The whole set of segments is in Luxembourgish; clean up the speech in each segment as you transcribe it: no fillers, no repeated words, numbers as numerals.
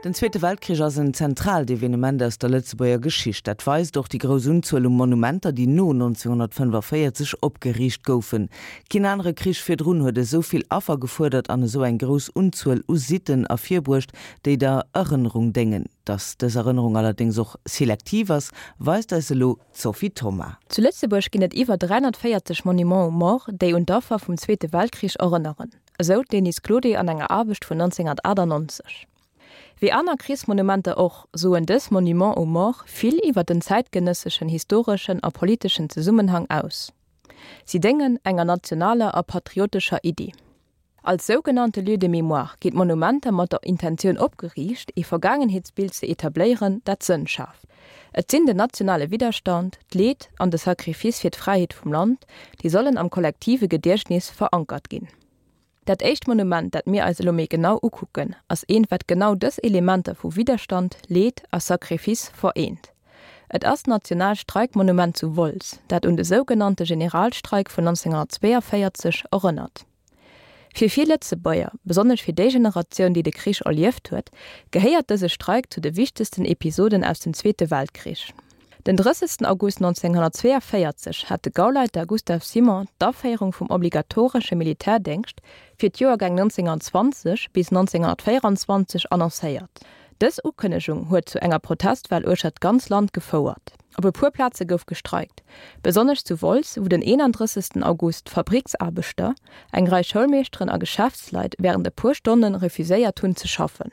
Den Zweete Weltkrich ass en zentraalt Evenement aus der Lëtzebuerger Geschicht. Dat weist och déi grouss Unzuel u Monumenter, déi no 1945 opgeriicht goufen. Keen anere Krich virdrun huet esou vill Affer gefuerdert an esou eng grouss Unzuel u Sitten ervirbruecht, déi der Erënnerung déngen. Datt dës Erënnerung allerdéngs och selektiv ass, weist eis elo d'Sophie Thoma. Zu Lëtzebuerg ginn et iwwer 340 Monuments aux morts, déi un d'Affer vum Zweete Weltkrich erënneren, esou d'Denise Claudet an enger Aarbecht vun 1998. Wéi aner Krichsmonumenter och, soen dës Monuments aux morts vill iwwer den zäitgenësseschen historeschen a politeschen Zesummenhang aus. Si déngen enger nationaler a patriotescher Iddi. Als sougenannte Lieux de mémoire ginn d'Monumenter mat der Intentioun opgeriicht, ee Vergaangenheetsbild ze etabléieren, dat Sënn schaaft. Et sinn den nationale Widderstand, d'Leed an de Sacrifice fir d'Fräiheet vum Land, déi sollen am kollektive Gediechtnis verankert ginn. Dat éischt Monument, dat mir eis elo méi genau ukucken, ass eent, wat genau dës Elementer vu Widderstand, Leed a Sacrifice vereent. Et ass d'Nationaalt Streikmonument zu Wolz, dat un de sougenannte Generalstreik vun 1942 erënnert. Fir vill Lëtzebuerger, besonnesch fir déi Generatioun, déi de Krich erlieft huet, gehéiert dëse Streik zu de wichtegsten Episoden aus dem Zweete Weltkrich. Den 30 August 1942 hat de Gauleiter Gustav Simon d'Aféierung vum obligatoresche Militärdéngscht fir d'Joergäng 1920 bis 1924 annoncéiert. Dës Ukënnegung huet zu enger Protestwell uechter d'ganz Land gefouert. Op e puer Plaze gouf gestreikt, besonnesch zu Wolz, wou den 31 August Fabricksaarbechter, eng Rei Schoulmeeschteren a Geschäftsleit wärend e puer Stonne refuséiert hunn ze schaffen.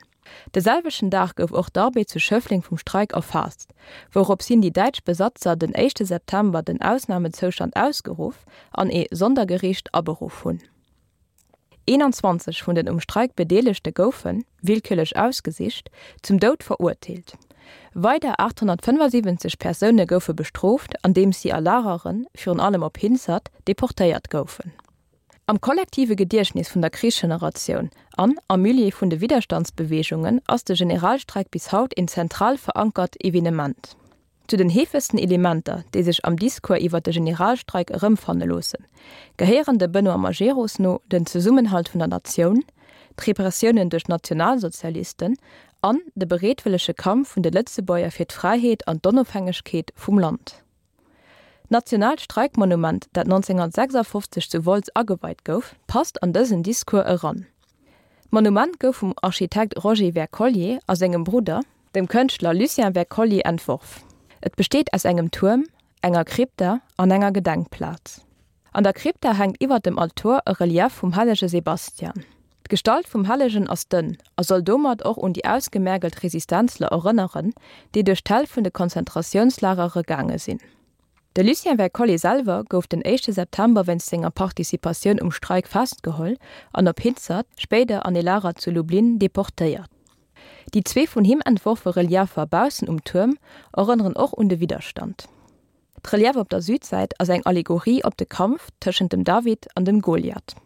De selwechten Dag gouf och d'Arbed zu Schëffleng vum Streik erfaasst, wourops hin déi däitsch Besatzer den éischte September den Ausnamezoustand ausgeruff an ee Sondergeriicht aberuff hunn. 21 vun den um Streik Bedeelegte goufen, willkürlech ausgesicht, zum Doud verurteelt. Weider 875 Persoune goufe bestrooft, andeems si a Lageren, virun allem op Hinzert, deportéiert goufen. Am kollektive Gediechtnis vun der Krichsgeneratioun an am Milieu vun de Widderstandsbeweegungen ass de Generalstreik bis haut een zentral verankert Evenement. Zu den heefegsten Elementer, déi sech am Discours iwwer de Generalstreik erëmfanne loossen, gehéieren dem Benoît Majerus no den Zesummenhalt vun der Natioun, d'Repressiounen duerch d'Nationalsozialisten an de bereetwëllege Kampf vun de Lëtzebuerger fir d'Fräiheet an d'Onofhängegkeet vum Land. D'Nationaalt Streikmonument, dat 1956 zu Wolz ageweit gouf, passt an dësen Discours eran. D'Monument gouf vum Architekt Roger Wercollier a sengem Brudder, dem Kënschtler Lucien Wercollier, entworf. Et besteet aus engem Tuerm, enger Krypta an enger Gedenkplaz. An der Krypta hänkt iwwer dem Altor e Relief vum hellege Sebastian. D'Gestalt vum Hellegen ass dënn a soll domat och un déi ausgemergelt Resistenzler erënneren, déi duerch d'Häll vun de Konzentratiounslagere gaange sinn. De Lucien Wercollier selwer gouf den éischte September wéinst senger Participatioun um Streik festgeholl an op Hinzert, spéider an ee Lager zu Lublin, deportéiert. Déi zwee vun him entworfe Reliefer baussen um Tuerm erënneren och un de Widderstand. D'Relief op der Südsäit ass eng Allegorie op de Kampf tëschent dem David an dem Goliath.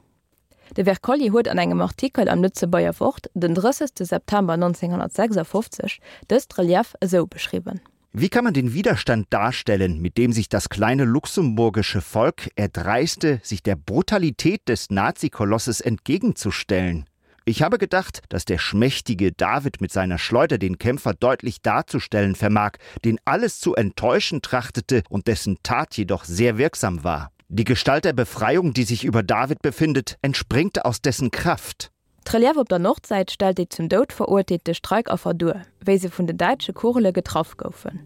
De Wercollier huet an engem Artikel am Lëtzebuerger Wort den 30. September 1956 dëst Relief esou beschriwwen. Wie kann man den Widerstand darstellen, mit dem sich das kleine luxemburgische Volk erdreiste, sich der Brutalität des Nazikolosses entgegenzustellen? Ich habe gedacht, dass der schmächtige David mit seiner Schleuder den Kämpfer deutlich darzustellen vermag, den alles zu enttäuschen trachtete und dessen Tat jedoch sehr wirksam war. Die Gestalt der Befreiung, die sich über David befindet, entspringt aus dessen Kraft. D'Relief op der Nordsäit stellt déi zum Doud verurteelte Streikaffer duer, wéi se vun den däitsche Kugele getraff goufen.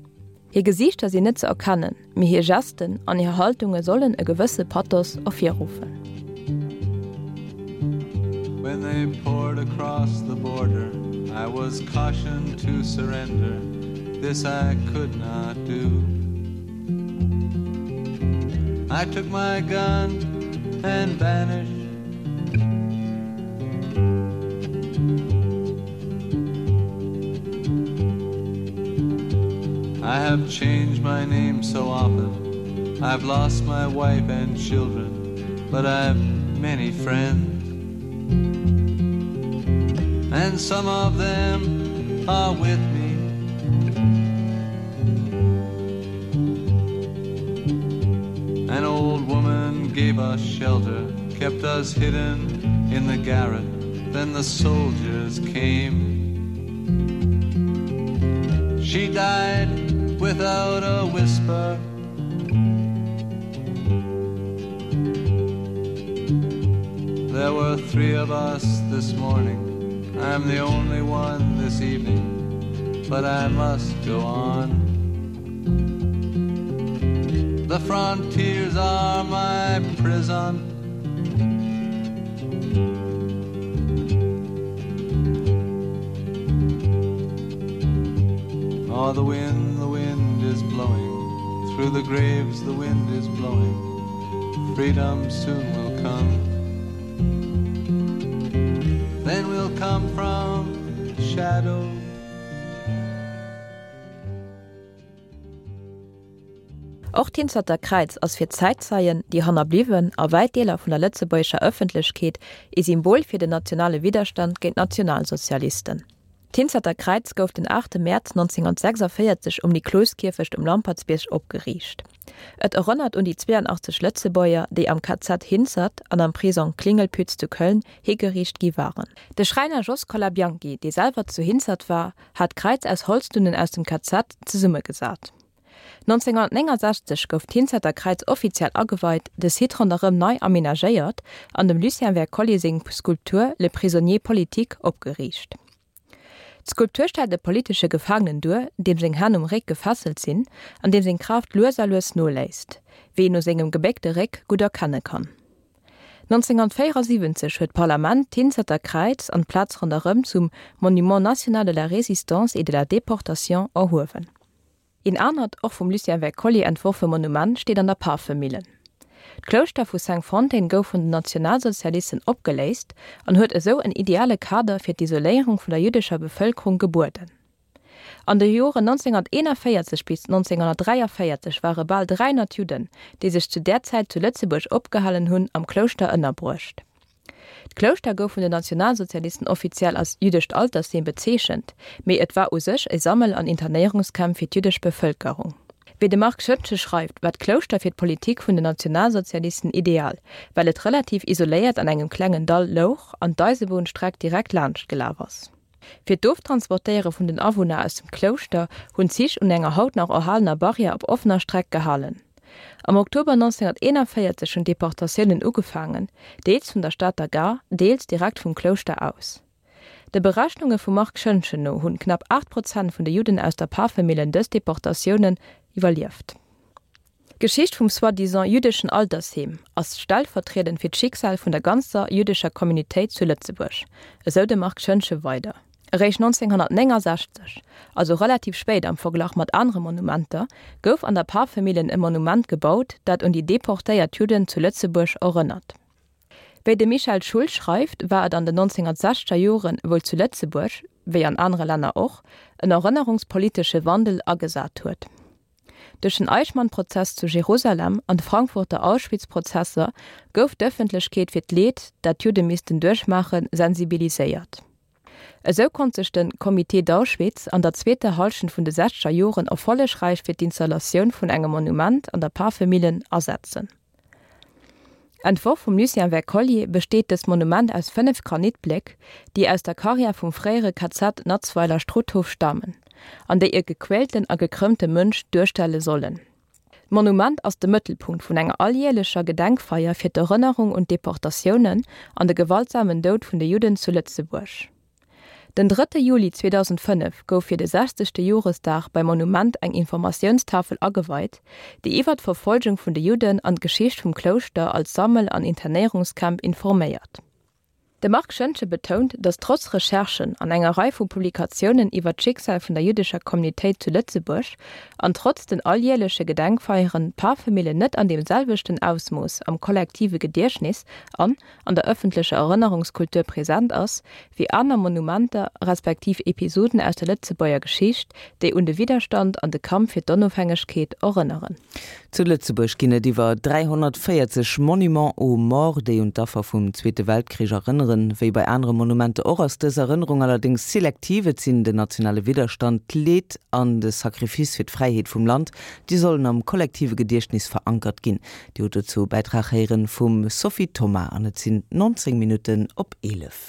Hir Gesiichter sinn net ze erkennen, mee hir Gesten an hir Haltunge sollen e gewësse Pathos ervirruffen. When they poured across the border I was cautioned to surrender This I could not do I took my gun and vanished I have changed my name so often I've lost my wife and children but I've many friends and some of them are with me An old woman gave us shelter kept us hidden in the garret then the soldiers came. She died without a whisper. There were three of us this morning. I'm the only one this evening, but I must go on. The frontiers are my prison. Oh, the wind, the wind is blowing. Through the graves the wind is blowing. Freedom soon will come. Then we'll come from shadow. Och d'Hinzerter Kräiz ass fir d'Zäitzeien, déi Hannerbliwwen a wäit Deeler vun der lëtzebuergescher Ëffentlechkeet ee Symbol fir den nationale Widderstand géint d'Nationalsozialisten. D'Hinzerter Kräiz gouf den 8 Mäerz 1946 um Nikloskierfecht um Lampertsbierg opgeriicht. Et erënnert un déi 82 Lëtzebuerger, déi am KZ Hinzert an am Prisong Klingelpütz zu Köln higeriicht gi waren. De Schräiner Jos Colabianchi, dee selwer zu Hinzert war, hat d'Kräiz aus Holzdunnen aus dem KZ zesummegesat. 1969 gouf d'Hinzerter Kräiz offiziell ageweit, de Site ronderëm nei amenagéiert an dem Lucien Wercollier seng Skulptur Le prisonnier politique opgeriicht. D'Skulptur stellt e politesche Gefaangenen duer, deem seng Hänn um Réck gefesselt sinn an deem seng Kraaft lues a lues noléisst, wéi een u sengem gebéckte Réck gutt erkenne kann. 1974 huet d'Parlament d'Hinzerter Kräiz an d'Plaz ronderëm zum Monument national de la Résistance et de la Déportation erhuewen. Een anert, och vum Lucien Wercollier entworfe Monument steet an der Pafemillen. D'Klouschter vu Cinqfontaines gouf vun den Nationalsozialisten opgeléist an huet esou en ideale Kader fir d'Isoléierung vun der jüddescher Bevëlkerung gebueden. An de Joren 1941 bis 1943 ware bal 300 Judden, déi sech zu där Zäit zu Lëtzebuerg opgehalen hunn, am Klouschter ënnerbruecht. D'Klouschter gouf vun den Nationalsozialisten offiziell als jüddescht Altersheem bezeechent, mee et war u sech e Sammel an Internéierungscamp fir d'jüddesch Bevëlkerung. Wéi de Marc Schoentgen schreift, war d'Klouschter fir d'Politik vun den Nationalsozialisten ideal, well et relativ isoléiert an engem klengen Dall louch an d'Eisebunnstreck direkt laanscht gelaf ass. Fir d'Oftransportéiere vun den Awunner aus dem Klouschter hunn d'Zich un enger haut nach erhalener Barrière op offener Streck gehalen. Am Oktober 1941 hunn d'Deportatiounen ugefaangen, deels vun der Stater Gare, deels direkt vum Klouschter aus. De Berechnunge vum Marc Schoentgen no hunn knapp 8 Prozent vun de Judden aus der Pafemillen dës Deportatiounen iwwerlieft. D'Geschicht vum soi-disant jüddeschen Altersheem ass stellvertriedend fir d'Schicksal vun der ganzer jüddescher Communautéit zu Lëtzebuerg, esou de Marc Schoentgen weider. Eréischt 1969, also relativ spéit am Verglach mat anere Monumenter, gouf an der Pafemillen e Monument gebaut, dat un déi deportéiert Judden zu Lëtzebuerg erënnert. Wéi de Michel Schull schreift, war et an den 1960er Joren wuel zu Lëtzebuerg, wéi an anere Länner och, en erënnerungspolitesche Wandel agesat huet. Duerch den Eichmann-Prozess zu Jerusalem an d'Frankfurter Auschwitz-Prozesser gouf d'Ëffentlechkeet fir d'Leed, dat d'Judde missten duerchmaachen, sensibiliséiert. Esou konnt sech de Comité d'Auschwitz an der zweeter Hallschent vun de sechzeger Joren erfollegräich fir d'Installatioun vun engem Monument an der Pafemillen asetzen. Entworf vum Lucien Wercollier besteet dëst Monument aus 5 Granitbléck, déi aus der Karriär vum fréiere KZ Natzweiler-Struthof stamen an déi e gequälten a gekrëmmte Mënsch duerstelle sollen. D'Monument ass de Mëttelpunkt vun enger alljäerlecher Gedenkfeier fir d'Erënnerung un d'Deportatiounen an de gewaltsamen Doud vun de Judden zu Lëtzebuerg. Den drëtte Juli 2005 gouf fir de sechzegte Joresdag beim Monument eng Informatiounstafel ageweit, déi iwwer d'Verfolgung vun de Judden an d'Geschicht vum Klouschter als Sammel an Internéierungscamp informéiert. De Marc Schoentgen betount, datt trotz Recherchen an enger Rei vu Publikatiounen iwwer d'Schicksal vun der jüddescher Communautéit zu Lëtzebuerg an trotz den alljäerleche Gedenkfeieren d'Pafemillen net an deem selwechten Ausmooss am kollektive Gediechtnis an an der ëffentlecher Erënnerungskultur present ass, wéi aner Monumenter respektiv Episoden aus der Lëtzebuerger Geschicht, déi un de Widderstand an de Kampf fir d'Onofhängegkeet erënneren. Zu Lëtzebuerg ginn et iwwer 340 Monuments aux morts, déi un d'Affer vum Zweete Weltkrich erënneren. Wéi bei anere Monumenter och, ass dës Erënnerung allerdéngs selektiv. Et sinn den nationale Widderstand, d'Leed an de Sacrifice fir d'Fräiheet vum Land, déi sollen am kollektive Gediechtnis verankert ginn. Dir hutt dozou e Bäitrag héieren vum Sophie Thoma an et sinn 19 Minutten op 11.